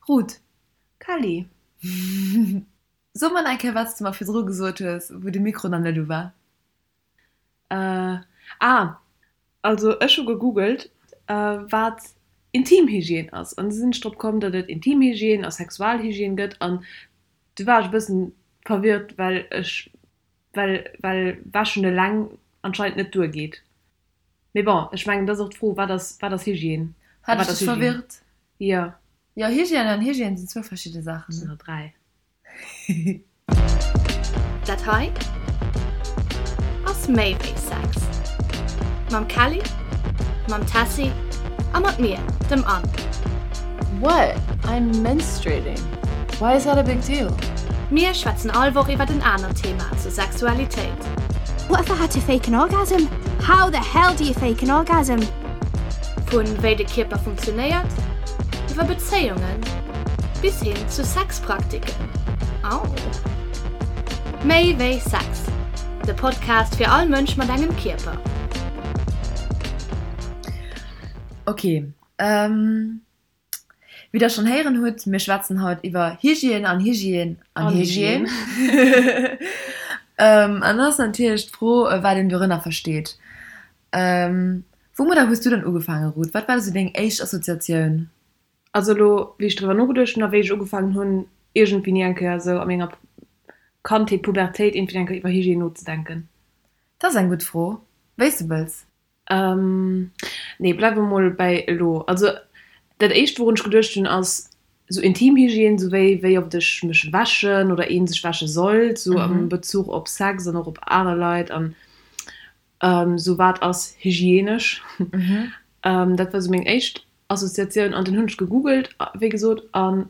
Ruth. Kelly. So mer nach eng Kéier, wat s de mer virdru gesot hues, wou de Mikro nach net u war. Ah, also ech hu gegoogelt, wat Intimhygiène ass, an du sinn ech drop komm, datt et Intimhygiène a Sexualhygiène gëtt, an du war ech e bëssen verwirrt, well ech, well, well wäschen eleng anscheinend net duergeet. Mee bon, ech mengen, et ass och d'Fro, wat ass, wat ass Hygiène a Hat wat ech ass dech Hygiène? verwirrt? Jo. Jo, Hygiène an Hygiène sinn zwou verschidde Saachen, Sinn ne? der 3. Dat hei ass méi wéi Sex. Mam Kelly, mam Tessy a mat mir, dem Anne. What? I'm menstruating. Why is that a big deal? Mir schwätzen all Woch iwwert en anert Thema zur Sexualitéit. What if I had to fake an orgasm? How the hell do you fake an orgasm? Vun wéi de Kierper funktionéiert, iwwer Bezéiungen bis hin zu Sexpraktiken. Au! Méi wéi Sex, de Podcast fir all Mënsch mat engem Kierper. Ok, wéi der schonn héieren hutt, mir schwätzen haut iwwer Hygiène an Hygiène an Hygiène. An dann ass natierlech d'Fro, wat een dorënner versteet. Woumadder hues du dann ugefaangen, Ruth? Wat war esou deng éischt Assoziatioun? Also elo, wéi ech driwwer nogeduecht hunn a wéi ech ugefaangen hunn, iergendwéini eng Kéier esou a menger Kandheet, Pubertéit, iergendwéini eng Kéier iwwer Hygiène nozedenken. Dat ass eng gutt Fro. Wéi s de wëlls. Nee, bleiwe mer mol bäi elo. Also dat éischt, wourun ech geduecht hunn, ass esou Intimhygiène, esou wéi wéi oft ech mech wäschen oder ee sech wäsche sollt, esou am Bezuch op Sex an och op aner Leit an esou wat ass hygienesch. Dat war esou meng éischt Assoziatioun an dunn hunn ech gegoogelt, wéi gesot, an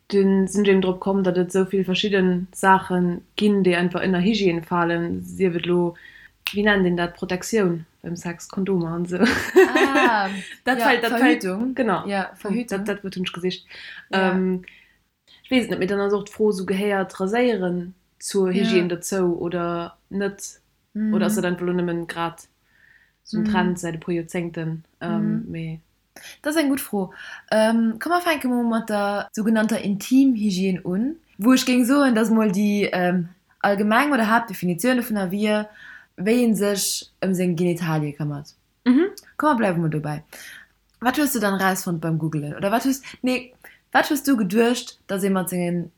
dunn sinn ech eben drop komm, datt et esou vill verschidde Saache ginn, déi einfach ënner Hygiène falen, sief et elo, wéi nennt een dat, Protektioun beim Sex, Kondomer an esou. Ah, Dat ja, fält, dat fält, Verhütung. genau, Ja, Verhütung. dat, dat Wuert hunn ech gesicht. Ja. Ech weess et net, mee dann ass och d'Fro esou, gehéiert Raséieren zur Hygiène Ja. dozou oder net? Oder ass dat einfach elo nëmmen grad esou en Trend säit e puer Joerzéngten? Mee. Dat ass eng gutt Fro. Komm mer fänke mol mat der sougenannter Intimhygiène un, wou ech géing soen, dass mol déi allgemeng oder Haaptdefinitioun dovunner wier, wéi ee sech ëm seng Genitalie këmmert. Komm mer bleiwe mol dobäi. Wat hues du dann erausfonnt beim Googelen? Oder wat hues, nee, wat hues du geduecht, dass ee mat sengen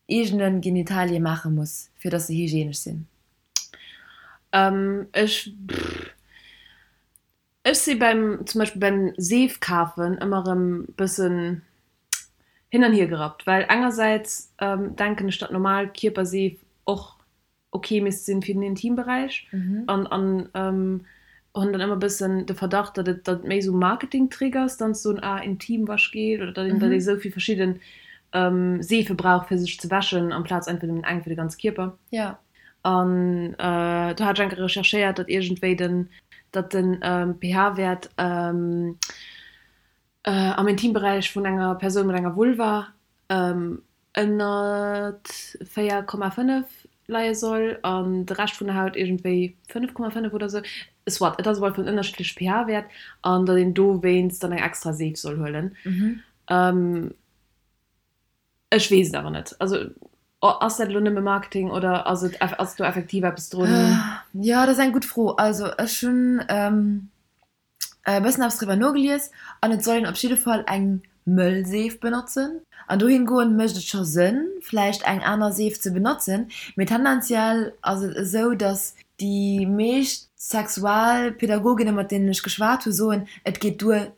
eegene Genitalie maache muss, fir dass se hygienesch sinn? Ech, ech si beim, zum Beispill beim Seef kafen ëmmer erëm bëssen hin an hier gerappt, well engersäits denken ech, datt normal Kierperseef och ok misst sinn fir den Intimberäich an an hunn dann ëmmer bëssen de Verdacht, datt et datt et méi esou Marketingtrick ass, dann ze soen, ah Intimwaschgel oder datt een datt ee sou vill verschidden Seefe brauch fir sech ze wäschen amplaz einfach nëmmen eng fir de ganze Kierper. An do hat ech eng Kéier recherchéiert, datt iergendwéi den datt den pH-Wäert am Intimberäich vun enger Persoun mat enger Vulva ënnert 4,5 leie soll an de Rescht vun der Haut iergendwéi 5,5 oder sou. Soit, et ass op alle Fall en ënnerschiddleche pH-Wäert an datt een dowéinst dann eng extra Seef soll huelen. Ech weess et awer net. Also ass dat elo nëmme Marketing oder ass et ass do effektiv eppes drun? Jo, dat ass eng gutt Fro. Also ech hunn e bëssen eppes driwwer nogelies an et soll een op jidde Fall eng mëll Seef benotzen. An dohin goend mécht et scho Sënn vläicht eng aner Seef ze benotzen, mee tendenziell ass et esou, datt déi meescht Sexualpädagoginnen mat deenen ech geschwat hu soen, et geet duer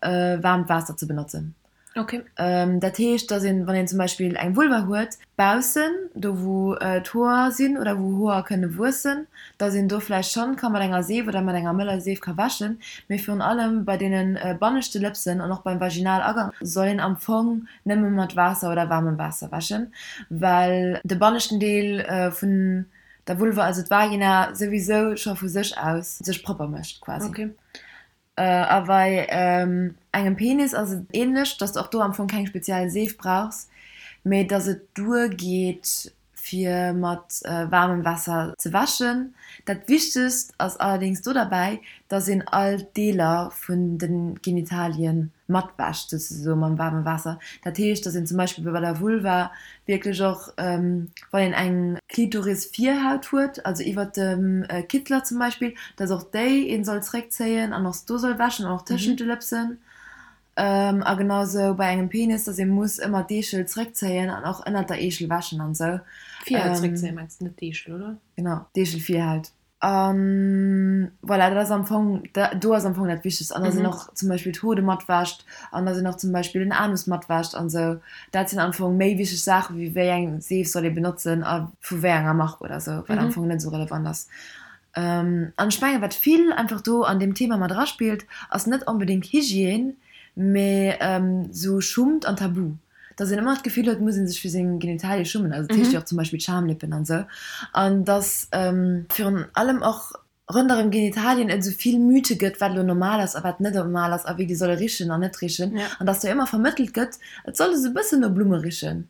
waarmt Waasser ze benotzen. Okay. Dat heescht, dass een, wann een zum Beispill eng Vulva huet, baussen, do wou d'Hoer sinn oder wou Hoer kënne wuessen, dass een do vläicht schonn ka mat enger Seef oder mat enger mëller Seef ka wäschen. Mee virun allem bei deene banneschte Lëpsen an och beim Vaginalagank soll een am Fong nëmme mat Waasser oder waarmem Waasser wäschen, well de banneschten Deel vun der Vulva, also d'Vagina, souwisou scho vu sech aus sech propper mécht quasi. Okay. A bei engem Penis ass et ähnlech, dass de och do am Fong keng speziell Seef brauchs, mee dass et duer geet. fir mat waarmem Waasser ze wäschen. Dat Wichtegst ass allerdéngs do derbäi, dass een all d'Deeler vun de Genitalien matwäscht, souzesoe mam waarme Waasser. Dat heescht, dass een zum Beispill bei der Vulva wierklech och, wann een eng Klitoris-Virhaut huet, also iwwert dem Kittler zum Beispill, dass och déi een soll zréckzéien an och do soll wäschen an och tëschent de Lëpsen. A genau sou bei engem Penis, dass ee muss ëmmer d'Eechel zréckzéien an och ënnert der Eechel wäschen an sou. D'Virhaut zréckzéien mengs de, net d'Eechel, oder? Genau, d'Eechelvirhaut. An voilà, dat ass am Fong, do ass am Fong dat Wichtegst. An dass een och zum Beispill d'Hode matwäscht an dass een och zum Beispill den Anus matwäscht an sou. Dat sinn am Fong méi wichteg Saache wéi wéi eng Seef soll ee benotzen a vu wéi enger Mark oder sou, wat am Fong net sou relevant ass. An ech mengen, wat vill einfach do an deem Thema mat eraspillt, ass net onbedéngt Hygiène, mee sou Schummt an Tabu. Dass een ëmmer d'Gefill huet, et muss ee sech fir seng Genitalie schummen, also dat heescht jo och zum Beispill d'Schamlippen an esou, an dass virun allem och ronderëm Genitalien et esou vill Mythe gëtt, wat elo normal ass a wat net normal ass a wéi déi solle richen an net richen, an dass do ëmmer vermëttelt gëtt, et soll esou e bëssen no Blumme richen.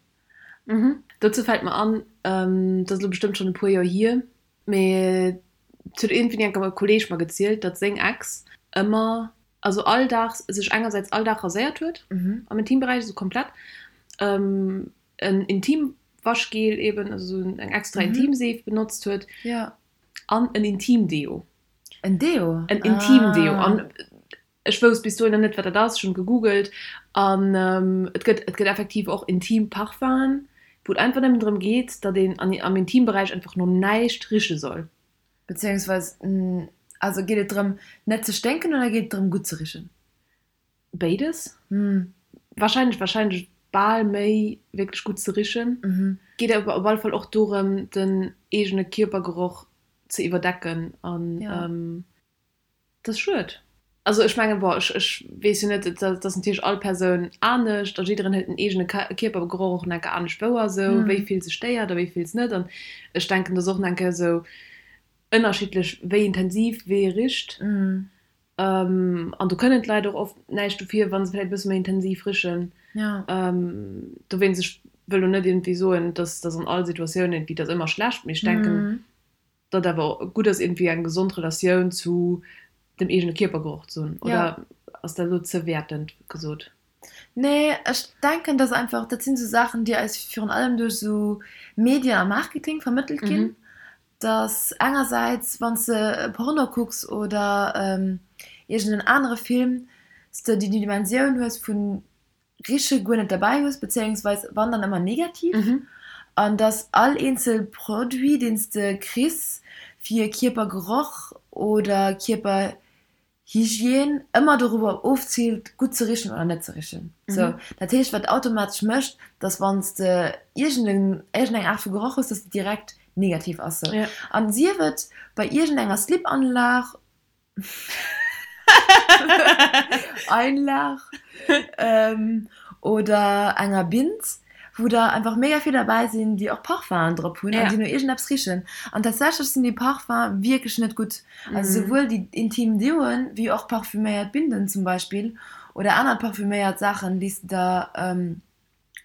Dozou fält mer an, dat ass elo bestëmmt schonn e puer Joer hier, Mee et huet iergendwéini eng Kéier e Kolleeg mer gezielt, datt seng Ex ëmmer, also all Dag, sech engersäits all Dag raséiert huet am Intimberäich, esou komplett, en Intimwaschgel eben, also esou eng extra Intimseef benotzt huet an en Intimdeo. En Deo? En Intimdeo. An Ech wousst bis dohinner net, wat dat ass. Ech hunn gegoogelt an et gëtt, et gëtt effektiv och intim Parfum'en, wou et einfach nëmmen drëm geet, datt een an, am Intimberäich einfach no näischt riche soll. Beziehungsweis, also geet et drëm, net ze sténken oder geet et drëm, gutt ze richen? Béides. Wahrscheinlech, wahrscheinlech bal méi wierklech gutt ze richen. Geet awer op alle Fall och dorëm, den eegene Kierpergeroch ze iwwerdecken an. Dat ass schued. Also ech mengen, bon, ech ech weess jo net, et ass natierlech all Persoun anescht a jiddereen huet den eegene Kierpergeroch och nach eng Kéier anescht wouer esou, wéi vill se stéiert a wéi vill s net. An ech denken, et ass och nach eng Kéier esou ënnerschiddlech, wéi intensiv wee richt. An do kënnen d'Leit och oft näischt dofir, wa se vläicht e bësse méi intensiv richen. Dowéinst, ech wëll lo net iergendwéi soen, dass dass an all Situatioun iergendwéi dat ëmmer schlecht, mee ech denken, datt awer gutt ass iergendwéi eng gesond Relatioun zu dem eegene Kierpergeroch ze hunn, oder ass dat elo ze wäertend gesot? Nee, ech denken, dass einfach, dat sinn esou Saachen, déi eis virun allem duerch esou Medien a Marketing vermëttelt ginn, dass engersäits, wann s de e Porno kucks oder iergend en anere Film, s de déi Dimensioun hues vun Riche guer net derbäi hues, bezéiungsweis wann dann ëmmer negativ, an dass all eenzel Produit deen s de kriss fir Kierpergeroch oder Kierperhygiène ëmmer dorobber ofziilt gutt ze richen oder net ze richen. Sou, dat heescht wat automatesch mécht, dass wann s de iergend eng Aart vu Geroch hues, dass de direkt negativ ass. Sou, an sief et bei iergendenger Slip-Anlag Einlag oder enger Bind, wou der einfach mega vill derbäi sinn, déi och Parfum'en drop hunn an déi no iergendeppes richen. An tatsächlech sinn déi Parfum wierklech net gutt. Also souwuel déi intim Deoen, wéi och parfuméiert Binden zum Beispill oder aner parfuméiert Saachen, déi s de der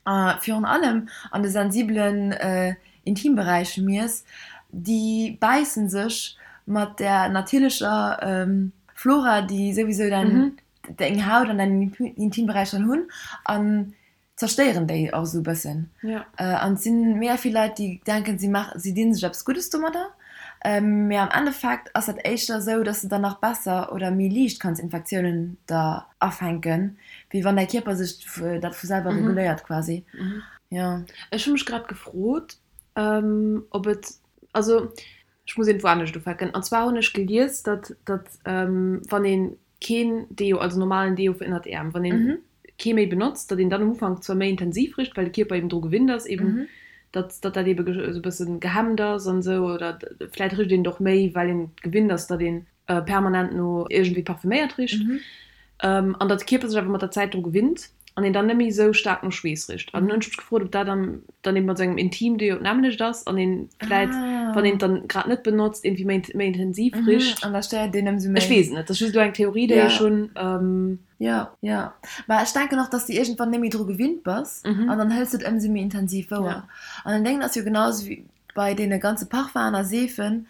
a virun allem an de sensibelen Intimberäich miess, déi bäissen sech mat der natierlecher Flora, déi souwisou deng Haut an deinen Intimberäich dann hunn, an zerstéieren déi och esou e bëssen. An et sinn mega vill Leit, déi denken, si maachen, si dinn sech eppes Guddes domadder, mee am Endeffekt ass dat éischter esou, dass de dann nach besser oder méi liicht kanns Infektiounen der afänken, Wéi wann däi Kierper sech dat vu selwer reguléiert quasi. Jo. Ech hu mech grad gefrot, ob et, also ech muss iergendwou anescht ufänken. An zwar hunn ech gelies, datt, datt wann ee keen Deo, also normalen Deo fir ënnert d'Äerm, wann ee kee méi benotzt, datt een dann am Ufank zwar méi intensiv richt, well de Kierper eben dru gewinnt ass, eben datt, datt dat ebe esou e bësse gehemmt ass an esou, oder vläicht richt een et och méi, well een gewinnt ass, datt een permanent no iergendwéi parfüméiert richt an datt de Kierper sech awer mat der Zäit dru gewinnt an een dann net méi esou staark no Schweess richt. An hunn ech mech gefrot, ob dat dann dann eben mat sou engem Intimdeo d'nämmlecht ass an een vläit. Wann een et dann grad net benotzt, iergendwéi méi méi intensiv richt. An da stéiert een ëmsou méi. Ech weess et net, dat ass just elo eng Theorie, déi ech hunn. Jo, jo. Mä ech denken och, dass de iergendwann net méi dru gewinnt bass an dann hëls de et ëmsou méi intensiv wouer. An den Déngen ass jo genau esou wéi bei deene ganze Parfum'en a Seefen,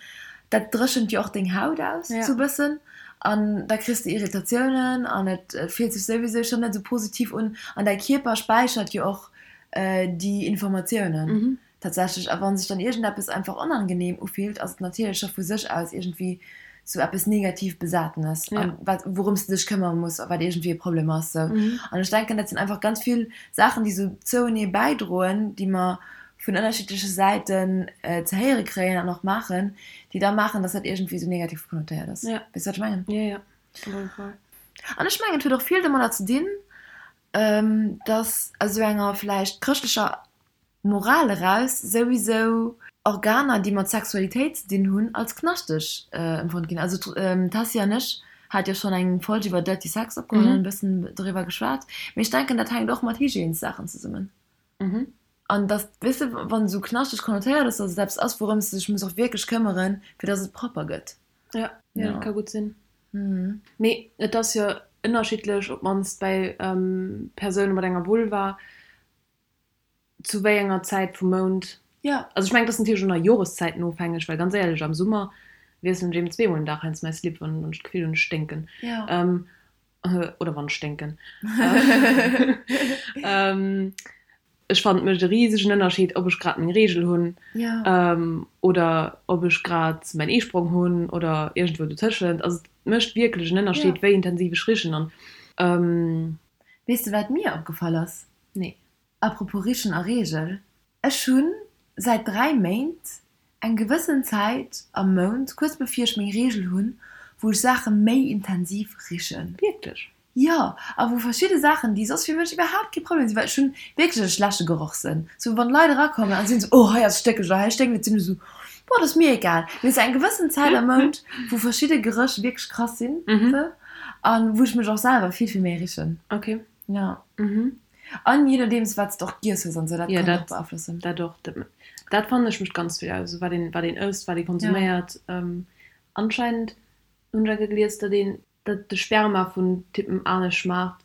dat dréchent jo och deng Haut aus sou bëssen an da kriss de Irritatiounen an et fillt sech souwisou schonn net sou positiv un an däi Kierper späichert jo och déi Informatiounen. Tatsächlech, a wann sech dann iergendeppes einfach onangenehm ufillt, ass et natierlech scho vu sech aus iergendwéi sou eppes negativ Besatenes, an wat, wourëms de dech këmmere muss a wat iergendwéi e Problem ass, sou. An ech denken, dat sinn einfach ganz vill Saachen, déi sou zouenee bäidroen, déi mer vun ënnerschiddleche Säiten ze héiere kréien an och maachen, déi da maachen, dass dat iergendwéi sou negativ konnotéiert ass. Weess de, wat ech mengen? Jo, jo, op alle Fall. An ech mengen, et huet och vill domadder ze dinn, dass aus esou enger vläicht chrëschtlecher Moral eraus souwisou Organer, déi mat Sexualitéit ze dinn hunn, als knaschteg empfonnt ginn. Also d'Tessy an ech hate jo schonn eng Folg iwwer Dirty Sex opgeholl an e bëssen doriwwer geschwat. Mee ech denken, dat hänkt och mat Hygiènesaachen zesummen. An dass, weess de, wann esou knaschteg konnotéiert ass, dass et eppes ass, wourëms de dech muss och wierklech këmmeren, fir dass et propper gëtt. Jo, jo, dat ka gutt sinn. Mee et ass jo ënnerschiddlech, op d'mannst bei Persoune mat enger Vulva, Zu wéi enger Zäit vum Mount? Jo. Also ech mengen, et ass natierlech och nach Joreszäiten ofhängeg, well ganz éierlech, am Summer wiesselen ech eben zweemol den Dag heiansdo mäi Slip, wann ech d'Gefill hunn, ech sténken. Jo. Oder wann ech sténken. Ech fannen, et mécht e risegen Ënnerscheed, ob ech grad meng Reegel hunn oder ob ech grad mäin Eesprong hunn oder iergendwou dotëschent. Also et mécht wierklech en Ënnerscheed, wéi intensiv ech richen. An. Weess de, wat mir opgefall ass? Nee. Apropos Richen a Reegel, ech hunn säit 3 Méint eng gewëssen Zäit am Mount, kuerz bevir ech meng Reegel hunn, wou ech Saache méi intensiv richen. Wierklech? Jo, a wou verschidde Saachen, déi soss fir mech iwwerhaapt kee Problem sinn, well ech hunn wierklech e schlechte Gerochssënn, sou wann Leit erakommen a sinn sou, oh hei ass stéckeg oder hei sténkt et, sinn ech sou, boah, dat ass mir egal. Mee sou eng gewëssen Zäit am Mount, wou verschidde Geréch wierklech krass sinn, sou, a wou ech mech och selwer vill, vill méi richen. Ok. Ja. Mhm. An je nodeems wat s de och giess hues an sou, dat kann och beaflossen. Dat och. Dat fannen ech mécht ganz vill aus, wat een, wat een ësst, wat ee konsuméiert. Anscheinend hunn ech enke gelies, datt een, datt de Sperma vun Typen anescht schmaacht,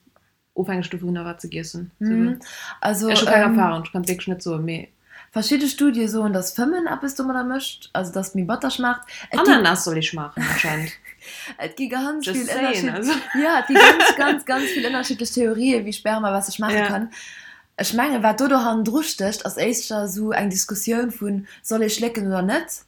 ofhängeg dovunner wat se giess hunn. Also ech hu keng Erfahrung, ech kann et wierklech net soen, mee. Verschidde Studie soen, datt Fëmmen eppes domadder mécht, also datt et méi batter schmaacht. Ananas soll ee schmaachen anscheinend. Et gi ganz vill ënnerschiddlech, jo, et gi ganz, ganz, ganz vill ënnerschiddlech Theorien, wéi Sperma besser schmaache kann. Ech mengen, wat do do hannendru stécht, ass éischter esou eng Diskussioun vun, soll ee schlécken oder net?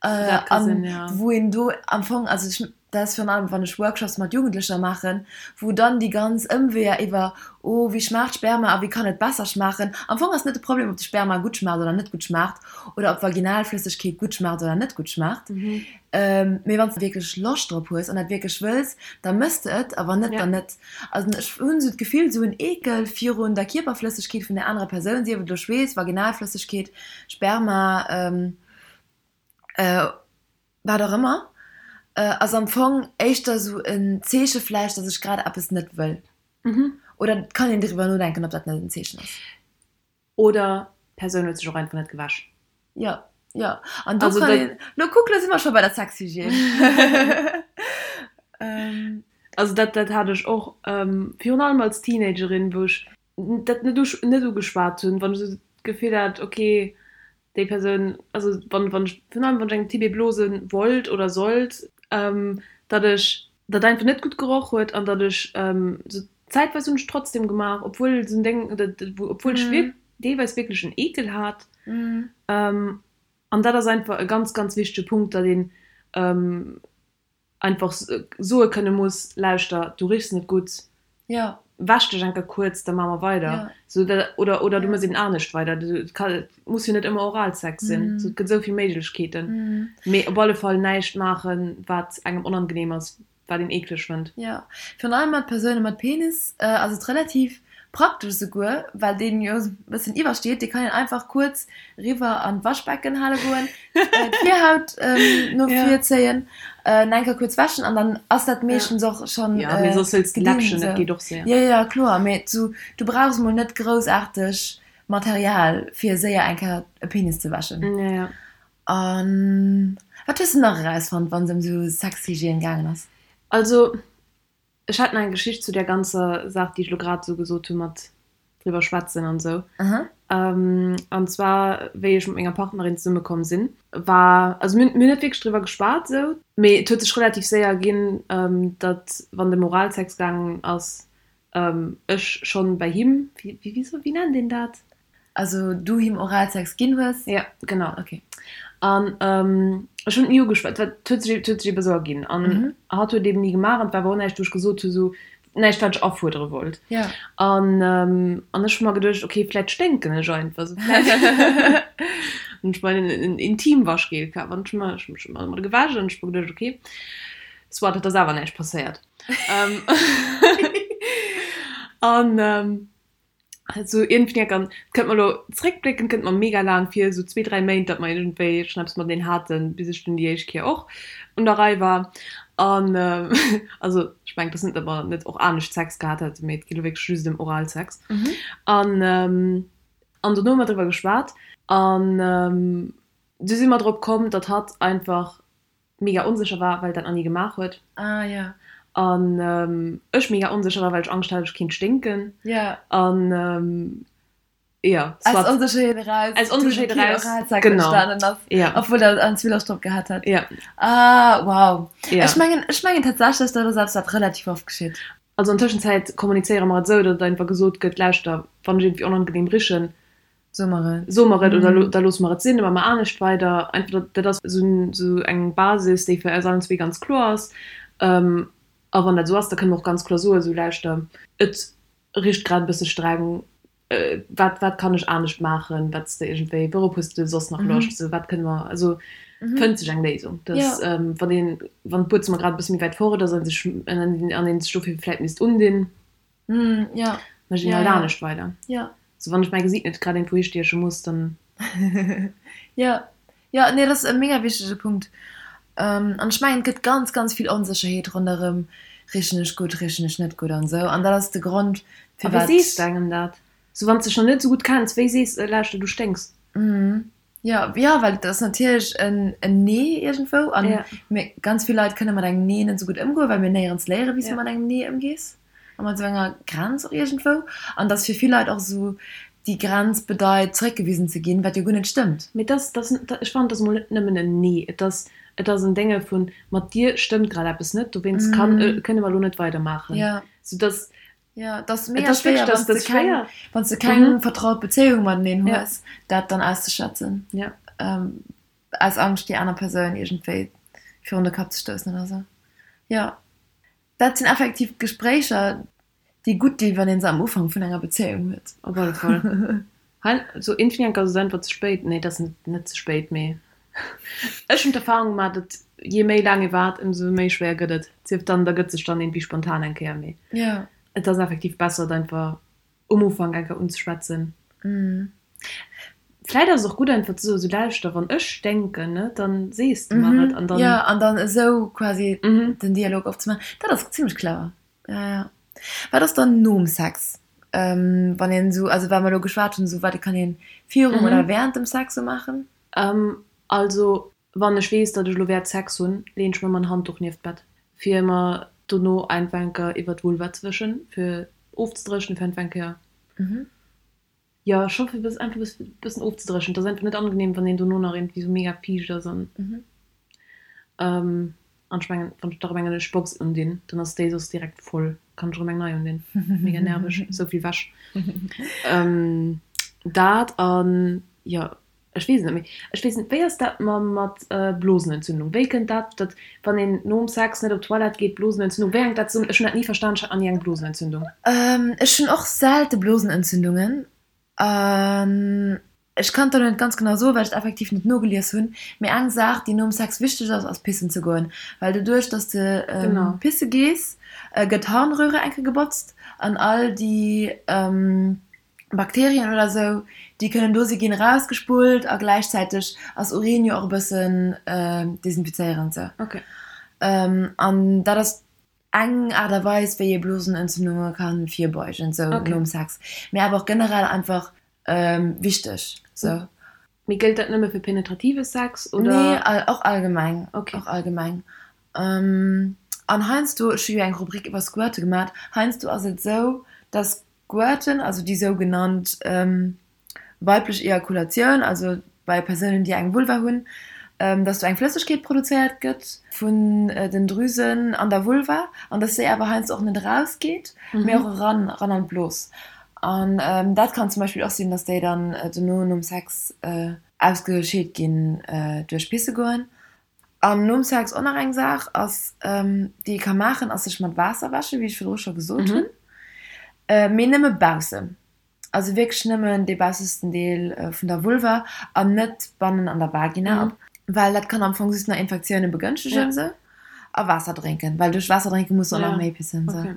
Dat ka sinn, ja. Wou een do am Fong, also ech, dat ass virun allem wann ech Workshops mat Jugendlecher maachen, wou dann déi ganz Ëmweeër iwwer, oh wéi schmaacht Sperma a wéi kann et besser schmaachen, am Fong ass net de Problem ob de Sperma gutt schmaacht oder net gutt schmaacht oder ob Vaginalflëssegkeet gutt schmaacht oder net gutt schmaacht, mee wann s de wierklech Loscht drop hues an dat wierklech wëlls, da mëss de et a wann net, dann net. Also ech hunn esou d'Gefill, esou en Eekel virun der Kierperflëssegkeet vun der anerer Persoun, sief et elo Schweess, Vaginalflëssegkeet, Sperma, Wat och ëmmer, ass am Fong éischter esou en Zeeche vläicht, datt ech grad eppes net wëll. Oder et kann een driwwer nodenken, ob dat net en Zeechen ass. Oder d'Persoun huet sech och einfach net gewäsch. Jo, jo. An do kann een, lo kuck, lo si mer scho bei der Sexhygiène. Also dat, dat hat ech och, virun allem als Teenagerin, wou ech dat net net ugeschwat hunn, wann ech esou d'Gefill hat, okay, déi Persoun, also wann wann ech virun allem wann ech engem Typ ee blose wollt oder sollt, datt ech dat einfach net gutt geroch huet an datt ech sou zäitweis hunn ech trotzdem gemaach, obwuel esou en Déng, obwuel ech wierk deelweis wierklech en Eekel hat. An dat ass einfach e ganz ganz wichtege Punkt, datt een einfach soe kënne muss, Lauschter, du richs net gutt, ja. wäsch dech eng Kéier kuerz, da maache mer weider. Ja. Sou, da, oder, oder du méchs eben anescht weider. Du, et ka, et muss jo net ëmmer Oralsex sinn. Mhm. Sou, et gëtt esou vill Méiglechkeeten. Mhm. Mee op alle Fall näischt maachen, wat engem onangenehm ass, wat een eekleg fënnt. Jo, virun allem mat Persoune mat Penis ass et relativ praktesch esouguer, well deen jo e bëssen iwwersteet. Dee kann een einfach kuerz riwwer an d'Waschbecken hale goen, d'Virhaut no vir zéien, en eng Kéier kuerz wäschen an dann ass dat meeschtens och schonn Jo, mee soss hëls de Läppchen, dat geet och séier. Jo, jo, kloer, mee du brauchs mol net groussaarteg Material fir séier eng Kéier e Penis ze wäschen. Jo, jo. An wat hues de nach erausfonnt, wann se ëm sou Sexhygiène gaangen ass? Also ech hat nach eng Geschicht zu där ganzer Saach, déi ech elo grad esou gesot hu mat driwwer schwätzen an esou. An zwar wéi ech mat menger Partnerin zesumme komm sinn, war, also mir hunn net wierklech driwwer geschwat esou, mee et huet sech relativ séier erginn, datt wann et ëm Oralsex gaangen ass, ech schonn bei him, wéi, wéi nennt een dat? Also du him Oralsex ginn hues? Ja, genau. Okay. An ech hunn et ni ugeschwat, et huet sech, et huet sech ebe sou erginn. An hatt huet eben ni gemaach an et war awer och näischt, wou ech gesot hu sou, näischt wat ech afuerdere wollt. Ja. An an ech hu mer geduecht, okay, vläit sténken ech einfach sou, vläit hunn ech mer en Intimwaschgel kaf an ech hu mer, ech hu mech mat gewäsch an ech hu mer geduecht, okay, soit, et ass awer näischt passéiert. An Sou iergendwéi an et kënnt mer elo zréckbléckend kënnt mer mega laang vir, sou zwee, dräi Méint, datt mer iergendwéi schonn eppes mateneen haten, bis ech dunn déi éischt Kéier och un der Rei war. An also ech mengen, et ass net, datt mer net och anescht Sex gehat hätten, mee et geet elo wierklech just ëm Oralsex. An an dono hu mer driwwer geschwat an du si mer drop komm, datt hatt einfach mega onsécher war, well dat nach ni gemaach huet. Ah ja. An ech mega onsécher war, well ech Angscht hat, ech kéint sténken. Ja. An jo, soit. Aus Onsécherheet eraus. Aus Onsécherheet eraus, genau. Entstanen ass. Ja. Obwuel der en Zwillersch drop gehat hat. Ja. Ah, wow. Ja. Ech mengen, ech mengen tatsächlech, dat ass eppes, wat relativ oft geschitt. Also an Tëschenzäit kommunizéiere mer et esou, datt einfach gesot gëtt, Lauschter, wann ech iergendwéi onangenehm richen, So mer et. So mer et oder da loosse mer et sinn, da maache mer anescht weider. Einfach dat ass esou eng Basis, déi fir eis allen zwee ganz kloer ass. A wann dat esou ass, da kënne mer och ganz kloer soen, esou lauschter, et richt grad e bësse streng, wat wat kann ech anescht maachen, wat s de iergendwéi, wourop hues de soss nach Loscht, esou wat kënne mer, also fënnt sech eng Léisung. Dass wann een, wann d'Buedzëmmer grad e bësse méi wäit fort ass a sech an een sech dofir vläit misst undinn, Mm, ja. Mécht een Ja, halt ja. anescht weider. Ja. So wann ech mäi Gesiit net grad iergendwou histieche muss, dann. Ja. Ja, nee, dat ass e mega wichtege Punkt. An ech mengen, et gëtt ganz, ganz vill Onsécherheet ronderëm, richen ech gutt, richen ech net gutt an esou. An dat ass de Grond, A wéi firwat. sees de engem dat? So wann s de dech nach net esou gutt kenns, wéi sees de, lauschter, du sténks? Jo, jo, well et ass natierlech en Nee iergendwou. A mir, ganz vill Leit kënne mat engem Nee net esou gutt ëmgoen, well mir néierens léieren, wéi s du mat engem Nee ëmgees a mat esou enger Grenz och iergendwou. An dass fir vill Leit och esou déi Grenz bedeit, zeréckgewisen ze ginn, wat jo guer net stëmmt. Mee et ass, et ass, ech fannen, et ass emol net nëmmen en Nee, et ass, et ass en Dénge vun, mat dir stëmmt grad eppes net, dowéinst kann, kënne mer elo net weidermaachen. Soudass Jo, et ass mega schwéier, wann s de keng, wann s de keng vertraut Bezéiung mateneen hues, dat dann auszeschwätzen. Aus Angscht, déi aner Persoun iergendwéi virun de Kapp ze stoussen oder sou. Jo, dat sinn effektiv Gespréicher, déi gutt dinn, wann ee se am Ufank vun enger Bezéiung huet. Op alle Fall. Hei, sou iergendwéi ass et einfach ze spéit. Nee, et ass net ze spéit, mee ech hunn d'Erfahrung gemaach, datt jee méi laang ee waart, ëmsou méi schwéier gëtt et. Sief dann, da gëtt sech dann iergendwéi spontan eng Kéier, mee et ass effektiv besser, et einfach um Ufank eng Kéier unzeschwätzen. Vläit ass et och gutt einfach ze soen, sou lauschter, wann ech sténken, ne, dann sees de mer et an dann. Jo, an dann esou quasi den Dialog opzemaachen, dat ass zimmlech clever. Jo, jo. Wat ass dann nom Sex, wann een esou, also well mer elo geschwat hunn, esou wat kann een virum oder während dem Sex esou maachen? Also wann ech weess, datt ech elo wäert Sex hunn, leen ech mer ëmmer en Handduch nieft d'Bett, fir mer dono einfach eng Kéier iwwer d'Vulva ze wëschen, fir ofzedréchnen, fir einfach eng Kéier, jo scho fir einfach e bëssen ofzedréchnen. Et ass einfach net angenehm, wann een dono nach iergendwéi esou mega fiicht ass an. An ech mengen, wann ech da rëm eng ënnesch Box undinn, dann ass déi soss direkt voll, kann ech erëm eng nei undinn. Mega nerveg, esou vill Wäsch. Dat an, jo, ech weess et net méi. Ech weess net, wéi ass dat mam mat Blosenentzündung? Wéi kënnt dat, datt wann een nom Sex net op d'Toilette geet, Blosenentzündung, wéi hänkt dat zesummen? Ech hunn dat ni verstan, ech hat nach ni eng Blosenentzündung. Ech hunn och selte Blosenentzündungen an ech kann et der net ganz genau soen, well ech et effektiv net nogelies hunn, mee eng Saach, déi nom Sex wichteg ass, ass pissen ze goen, well doduerch, dass de pisse gees, gëtt d'Harnröhre eng Kéier gebotzt an all déi Bakterien oder sou, déi kënnen do si ginn erausgespullt a gläichzäiteg ass Urin jo och e bëssen desinfizéierend sou. An dat ass eng Aart a Weis, wéi ee Blosenentzündunge ka virbeugen sou nom Sex, mee awer och generell einfach wichteg sou. Mee gëllt dat nëmme fir penetrative Sex oder? Nee, och allgemeng. Okay. Och allgemeng. An heiansdo, ech hu jo eng Rubrik iwwer Squirte gemat, heiansdo ass et esou, dass Squirten, also déi sougenannt weiblech Ejakulatioun, also bei Persounen, déi eng Vulva hunn, dass do eng Flëssegkeet produzéiert gëtt vun den Drüsen an der Vulva an dass déi awer heiansdo och net erausgeet, mee och eran, eran an d'Blos. An dat kann zum Beispill och sinn, dass déi dann dono nom Sex ausgescheet ginn duerch pisse goen. An nom Sex och nach eng Saach ass, déi ee ka maachen, ass sech mat Waasser wäschen, wéi ech virdru scho gesot hunn, mee nëmme baussen. Also wierklech nëmmen dee baussesten Deel vun der Vulva an net bannen an der Vagina, well dat kann am Fong just nach Infektioune begënschtegen esou. A Waasser drénken, well duerch Waasser drénke muss de och nach méi pissen esou.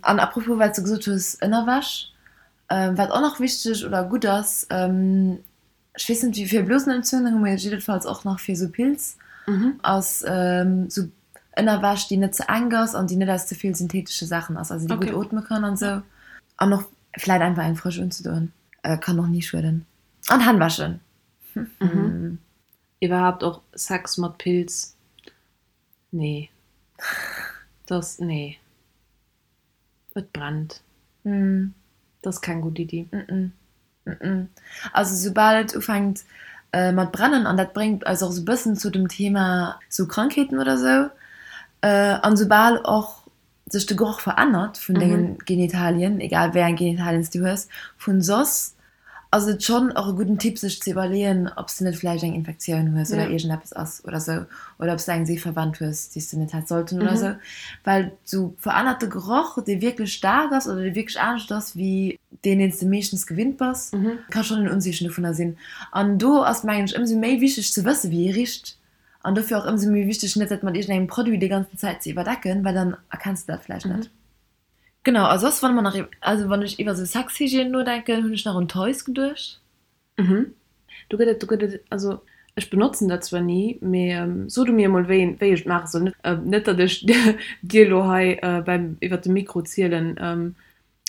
An apropos wat s de gesot hues, Ënnerwäsch, wat och nach wichteg oder gutt ass, ech weess net wéi fir Blosenentzündungen, mee jiddefalls och nach fir esou Pilz, ass esou Ënnerwäsch déi net ze enk ass an déi net aus ze vill synthetesche Saachen ass, also déi gutt ootme kann an esou. An och vläit einfach eng frësch unzedoen, kann och ni schueden. An Hänn wäschen. Iwwerhaapt och Sex mat Pilz, nee, dass, nee, et brennt, dat ass keng gutt Iddi. Also soubal et ufänkt mat brennen, an dat bréngt eis och esou e bëssen zu dem Thema sou Krankheeten oder sou, an soubal och sech de Geroch verännert vun dengen Genitalien, egal wéi eng Genitalien s du hues, vun soss ass et schonn och e gudden Tipp sech ze iwwerleeën, ob s de net vläicht eng Infektioun hues oder iergendeppes ass oder sou, oder ob s de eng Seef verwennt hues, déi s de net häss sollten oder sou. Well sou verännerte Geroch, dee wierklech staark ass oder dee wierklech anescht ass wéi deen, deen s de meeschtens gewinnt bass, ka schonn en Unzeechen dovunner sinn. An do ass, mengen ech, ëmsou méi wichteg ze wësse wéi ee richt. An dofir och ëmsou méi wichteg, net dat mat iergendengem Produit déi ganzen Zäit ze iwwerdecken, well dann erkenns de dat vläicht net. Genau, a soss, wann mer nach, also wann ech iwwer esou Sexhygiène nodenken, hunn ech nach un Toys geduecht. Mhm. Do gëtt et, do gëtt et, also ech benotzen dat zwar ni, mee so du mir emol wéi een, wéi ech et maache soll. Net datt ech dir elo hei beim iwwert de Mikro zielen,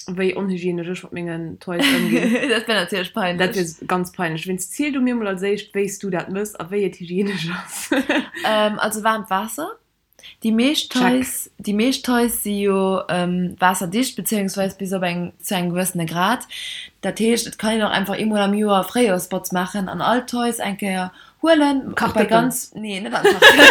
wéi onhygienesch ech mat mengen Toys ëmginn. Dat wär natierlech peinlech. Dat wier ganz peinlech. Wéinst ziel du mir mol als éischt, wéi s du dat mëss a wéi et hygienesch ass. Also waarmt Waasser. Déi meescht Toys, déi meescht Toys si jo waasserdicht, beziéungsweis bis op eng, zu engem gewëssene Grad. Dat heescht, et kann een och einfach eemol am Joer Fréijoerspotz maachen an all d'Toys eng Kéier huelen. Bei ganz, nee, net an Kartoffeln.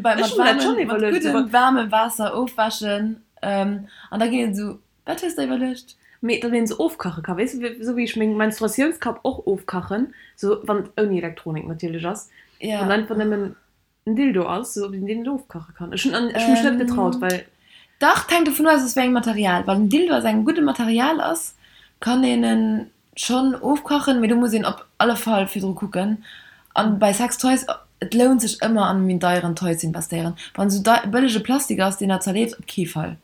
Bei mat waarmem, mat guddem waarmem Waasser ofwäschen. An da ginn et esou, wat hues de iwwerluecht? Mee datt een se ofkache ka, weess de, esou wéi ech meng Menstruatiounskapp och ofkachen, sou wann et ouni Elektronik natierlech ass, wann einfach nëmmen en Dildo ass, sou ob een deen net ofkache kann. Ech hunn ech hunn mech net getraut, well. Dach, et hänkt dovun of, aus wéi engem Material. Wann en Dildo aus engem gudde Material ass, kann een en schonn ofkachen, mee do muss een op alle Fall virdru kucken. An bei Sextoys, et lount sech ëmmer an méi deieren Toy ze investéieren. Wann esou bëllege Plastik ass, deen der zerleeft, op kee Fall.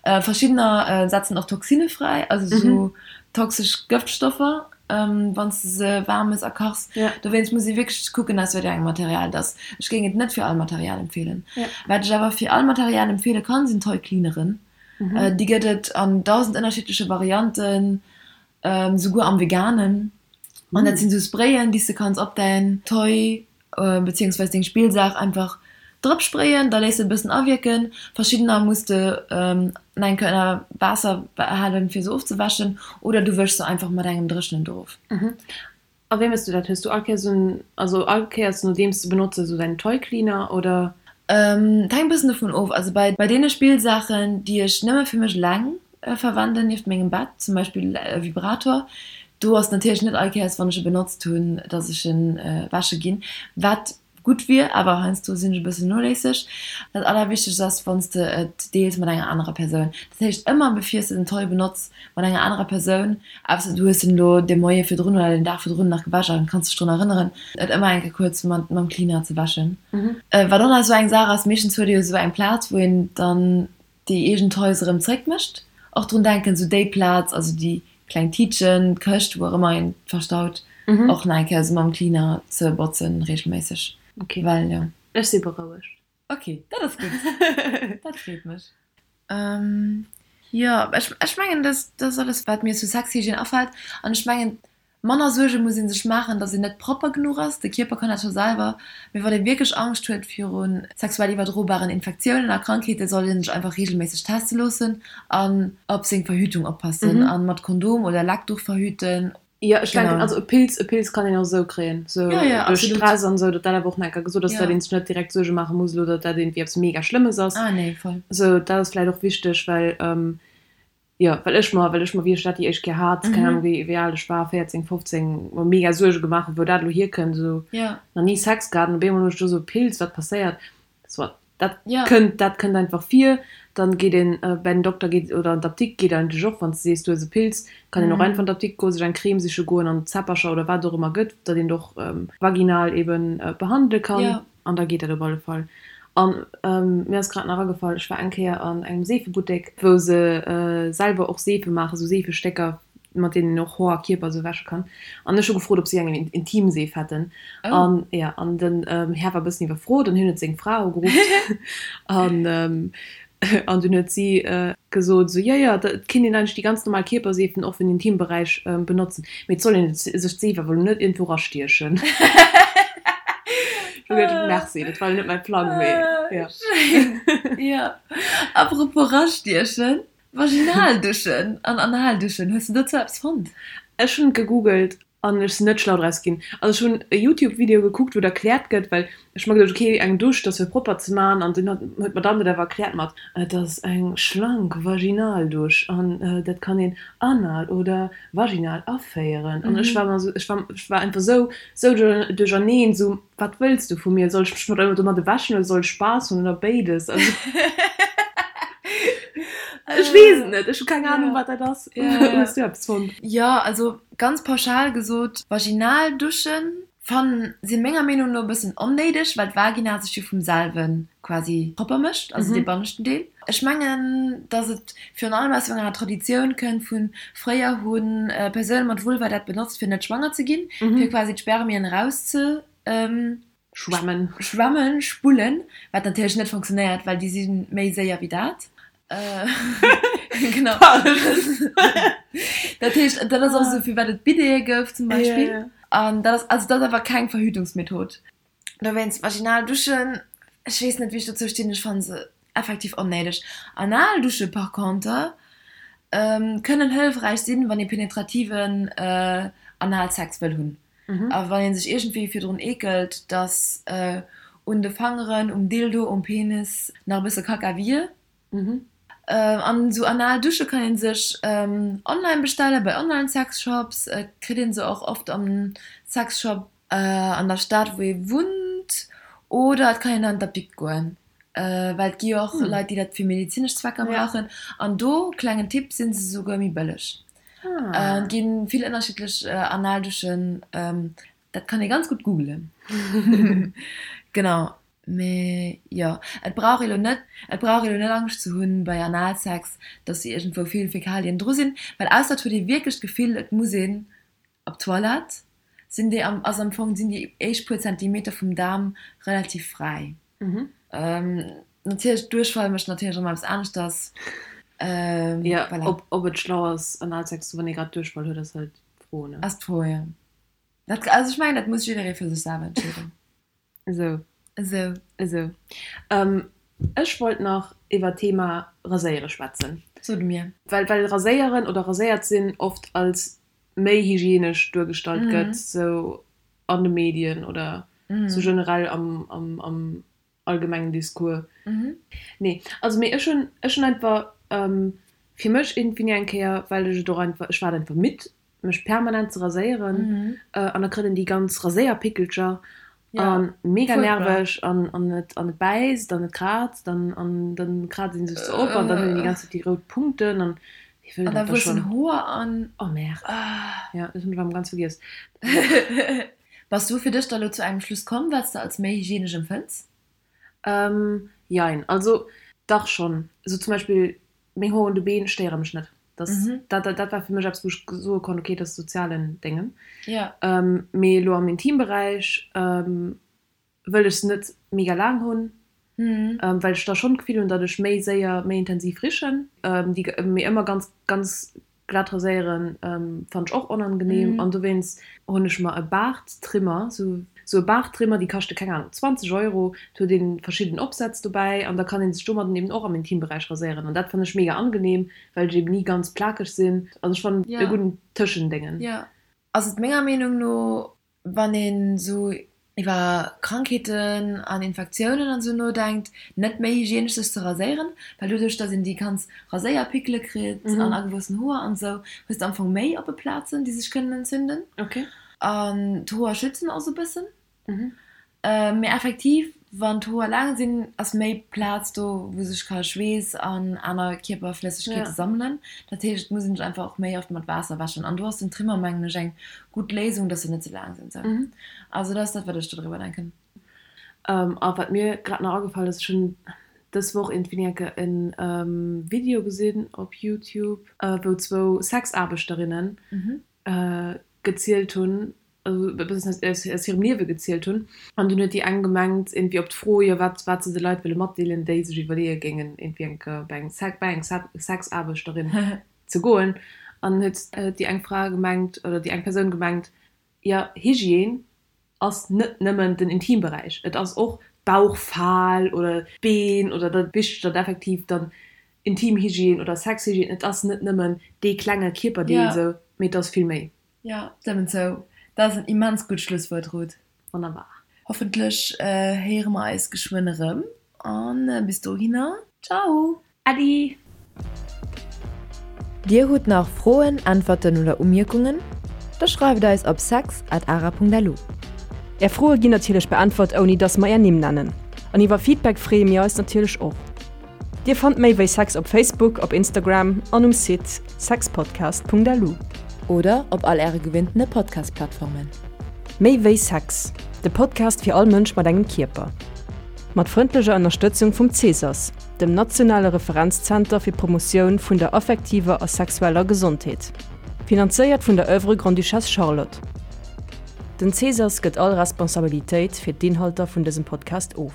Verschiddener setzen och Toxine fräi, also sou toxesch Gëftstoffer, wann s de se waarm mëss a kachs. Dowéinst muss ee wierklech kucken, aus wat fir engem Material et ass. Ech géing et net fir all Material empfeelen. Wat ech awer fir all Material empfeele kann, sinn Toy-Cleaneren. Déi gëtt et an 1.000 ënnerschiddleche Varianten, souguer am Veganen. An dat sinn sou Sprayen, déi s de kanns op däin Toy beziehungsweis deng Spillsaach einfach drop sprayen, da léiss de et e bëssen awierken. Verschiddener muss de nach eng Kéier ënner Waasser halen fir se ofzewäschen oder du wëschs se einfach mat engem dréchenen Duch of. A wéi méchs du dat? Hues du all Kéiers en, also all Kéiers nodeems de benotze sou däin Toy Cleaner oder? Et hänkt e bëssen dovun of. Also bei bei deene Spillsaachen déi ech nëmme fir mech eleng verwenden nieft mengem Bett, zum Beispill e Vibrator, do ass natierlech net all Kéiers wann ech e benotzt hunn, dass ech en wäsche ginn, wat gutt wier, awer heiansdo sinn ech e bëssen noléisseg. Dat allerwichtegst ass wann s de et deels mat enger anerer Persoun. Dat heescht ëmmer bevir s de den Toy benotz mat enger anerer Persoun, ausser du hues en elo de Moie virdrun oder den Dag virdrun nach gewäsch an kanns dech drun erënneren, et ëmmer eng Kéier kuerz mat mam Cleaner ze wäschen. Wat och nach esou eng Saach ass, meeschtens huet ee jo esou eng Plaz wou een dann déi eegen Toys erëm zréck mécht. Och drun denken, esou déi Plaz, also déi kleng Tiitchen, d'Këscht, wou och ëmmer een verstaut, och nach eng Kéier esou mam Cleaner ze botzen regelméisseg. Ok, well jo. Ech si berouegt. Ok, dat ass gutt. Dat freet mech. Jo, ech, ech mengen, dat, dat ass alles, wat mir zu Sexhygiène afält. An ech mengen, manner Suerge muss ee sech maachen, datt een net propper genuch ass. De Kierper kann dat scho selwer. Mee wann ee wierklech Angscht huet viru sexuell iwwerdrobaren Infektiounen a Krankheeten, sollt ee sech einfach reegelméisseg teste loossen an op seng Verhütung oppassen a mat Kondom oder Leckduch verhüten. Jo, ech denken, also e Pilz, e Pilz kann een och esou kréien, esou duerch Stress an esou, datt dat awer och nach eng Kéier gesot ass, datt een sech net direkt Suerge maache muss elo, datt dat iergendwéi eppes mega Schlëmmes ass. Esou, dat ass vläicht och wichteg, well, jo, well ech mer, well ech mer, wéi ech dat déi éischt Kéier hat, keng Ahnung, wéi, wéi al ech war, 14, 15, mer mega Suerge gemaach hunn, wou dat elo hierkënnt, esou, nach ni Sex gehat an op eemol hunn ech do esou e Pilz, wat passéiert? Soit. Dat kënnt, dat kënnt einfach vir. Dann geet een bäi den Dokter geet oder an d'Apdikt geet eigentlech och, wann s de sees du hues e Pilz, kann een och einfach an d'Apdikt goen, sech eng Crème siche goen an Zäppercher oder wat et och ëmmer gëtt, datt een et och vaginal eben behandele kann an da geet dat op alle Fall. An mir ass grad nach agefall, ech war eng Kéier an engem Seefebuttek, wou se selwer och Seefe maachen, sou Seefestécker, mat deenen een och Hoer a Kierper esou wäsche kann. An ech hu gefrot, ob si eng Intimseef hätten. An jo, an den Här war e bëssen iwwerfrot an hien huet seng Fra ugeruff. An an dunn huet si gesot esou, jo, jo, et kinnt een eigentlech déi ganz normal Kierperseefen och fir den Intimberäich benotzen, mee et soll een sech d'Seef awer elo net iergendwou erastiechen. Ech hu geduecht, Merci, dat war elo net mäi Plang, mee jo. Schéin, jo. Apropos rastiechen, Vaginalduschen an Analduschen, hues de dozou eppes fonnt? Ech hunn gegoogelt an ech sinn net schlau draus ginn. Also ech hunn e Youtube Video gekuckt wou et erkläert gëtt, well ech mer geduecht ok eng Dusch dat ass fir propper ze man an dunn huet d'Madame dat awer erkläert mat et ass eng schlank Vaginaldusch an dat kann een anal oder vaginal aféieren an ech war mer esou ech war ech war einfach esou esou duercherneen esou wat wëlls du vu mir? Soll ech mech mat domadde wäschen oder soll ech Spaass hunn oder béides? Also ech weess et net, ech hu keng Ahnung wat dat ass. Hues du eppes fonnt? Jo, also ganz pauschal gesot, vaginal Duschen fannen si menger Meenung no e bëssen onnéideg, well d'Vagina sech jo vum selwe quasi propper mécht, also dee banneschten Deel. Ech mengen, dass et virun allem aus enger Traditioun kënnt vu fréier hu Persoune mat Vulva dat benotzt fir net schwanger ze ginn, fir quasi d'Spermien eraus ze schwemmen, schwemmen, spullen, wat natierlech net funktionéiert, well déi si méi séier wéi dat. Genau. Dat heescht, dat ass och esou firwat et Bidete gouf zum Beispill. An dat ass, also dat ass awer keng Verhütungsmethod. Dowéinst vaginal Duschen, ech weess net wéi ech dozou stinn, ech fannen se effektiv onnéideg. Anal Dusche par conter kënnen hëllefräich sinn, wann ee penetrativen Analsex wëll hunn a wann ee sech iergendwéi virdrun eekelt, dass un de Fangeren, um Dildo, um Penis nach e bësse Kacka wier. An esou anal Dusche kann een sech online bestellen, bei online Sexshops. Et kritt een se och oft am Sexshop an der Stad wou ee wunnt oder et kann een an d'Apdikt goen, well et gi jo och Leit déi dat fir medezinesch Zwecker brauchen. An do, klengen Tipp, sinn se souguer méi bëlleg. Et gi vill ënnerschiddlech Analduschen, dat kann ee ganz gutt googelen. Genau. Mee jo, et brauch ee lo net, et brauch ee lo net Angscht ze hunn bei Analsex, dass iergendwou vill Fäkalien dru sinn, well ausser et huet ee wierklech d'Gefill, et muss een op d'Toilette, sinn déi am, ass am Fong, sinn déi éischt puer Zentimeter vum Daarm relativ fräi. Natierlech, Duerchfall mécht natierlech erëm eppes aneschters. Jo, voilà. Ob, ob et schlau ass Analsex ze hunn, wann ee grad Duerchfall huet, ass halt d'Fro, ne? Ass d'Fro, jo. Dat, also ech mengen, dat muss jidderee fir sech selwer entscheeden. Esou. Esou. Esou. Ech wollt nach iwwer d'Thema Raséiere schwätzen. Sot mir. Well, well Raséieren oder raséiert sinn oft als méi hygienesch duergestallt gëtt, sou an de Medien oder sou generell am, am, am allgemengen Discours. Nee, also mee ech hunn, ech hunn einfach fir mech iergendwéi eng Kéier, well ech et och einfach, ech war et einfach midd, mech permanent ze raséieren an da kritt een déi ganz Raséierpickelcher an mega nerveg an an et an et bäisst an et kraazt an an dann kraazt een sech se op an dann huet een déi ganz Zäit déi rout Punkten an wee wëll dat da schonn. Hoer an oh merde jo dat hunn ech erëm ganz vergiess. Bass du fir dech da lo zu engem Schluss komm wat s de als méi hygienesch empfënns? Jein, also dach schonn, sou zum Beispill Meng Hoer un de Been stéiere mech net. Dat, dat, dat war fir mech eppes, wou ech soe konnt, okay, dat ass sozialen Déngen. Mee elo am Intimberäich wëll ech se net mega laang hunn. Well ech da schonn d'Gefill hunn, datt ech méi séier, méi intensiv richen. Déi mee ëmmer ganz, ganz glat raséieren fannt ech och onangenehm. An dowéinst hunn ech mer e Baarttrimmer, sou e Baarttrimmer, déi kaschte keng Ahnung 20 Euro. Et huet een verschidden Opsätz dobäi an da kann een sech domadden eben och am Intimberäich raséieren. An dat fann ech mega angenehm, well ech eben ni ganz plakeg sinn. Also ech fannen e gudden Tëschendéngen. Jo, ass et menger Meenung no Wann een esou iwwer Krankheeten an Infektiounen an esou nodenkt, net méi hygienesch sech ze raséieren, well doduerch dass een déi ganz Raséierpickele kritt an agewuessen Hoer an esou, hues de am Fong méi oppe Plazen déi sech kënnen entzünden. An d'Hoer schützen och esou e bëssen. Mee effektiv, wann d'Hoer laang sinn, ass méi Plaz do, wou sech ka Schweess an aner Kierperflëssegkeete sammelen. Dat heescht, et muss een sech einfach och méi oft mat Waasser wäschen. An do ass den Trimmer, mengen ech, eng gutt Léisung, dass se net sou laang sinn. Sou. Also dat ass dat, wat ech dodriwwer denken. A wat mir grad nach agefall ass, ech hunn dës Woch iergendwéini eng Kéier en Video gesinn op Youtube, wou zwou Sexaarbechterinnen gezielt hunn, also e bëssen aus hirem Liewe gezielt hunn. An dunn huet déi eng gemengt, iergendwéi op d'Fro, jo wat wat se de Leit wëlle matdeelen, déi sech iwwerleeë géingen, iergendwéi eng Kéier bei eng bei eng Sexaarbechterin ze goen. An huet déi eng Fra gemengt, oder déi eng Persoun gemengt, jo Hygiène ass net nëmmen den Intimberäich, et ass och d'Bauchfal oder d'Been oder dat wichteg, datt effektiv dann Intimhygiène oder Sexhygiène, et ass net nëmmen dee klenge Kierperdeel esou, mee et ass vill méi. Jo, stëmmen zou. Dat ass en immens gutt Schlusswuert, Ruth. Wonnerbar. Hoffentlech héiere mer eis geschwënn erëm an bis dohinner, Ciao! Äddi! Dir hutt nach Froen, Äntwerten oder Umierkungen? Da schreift eis op sex at ara.lu. Är Froe ginn natierlech beäntwert ouni dass mer är Nimm nennen. An iwwer Feedback freeë mir eis natierlech och. Dir fannt méi wéi Sex op Facebook, op Instagram an um Site sexpodcast.lu. Oder op all äre gewinntene Podcast-Plattformen. Méi wéi Sex, de Podcast fir all Mënsch mat engem Kierper. Mat frëndlecher Ënnerstëtzung vum Cesas, dem nationale Referenzzenter fir d'Promotioun vun der affektiver a sexueller Gesondheet. Finanzéiert vun der Oeuvre Grande-Duchesse Charlotte. Den Cesas gëtt all Responsabilitéit fir d'Inhalter vun dësem Podcast of.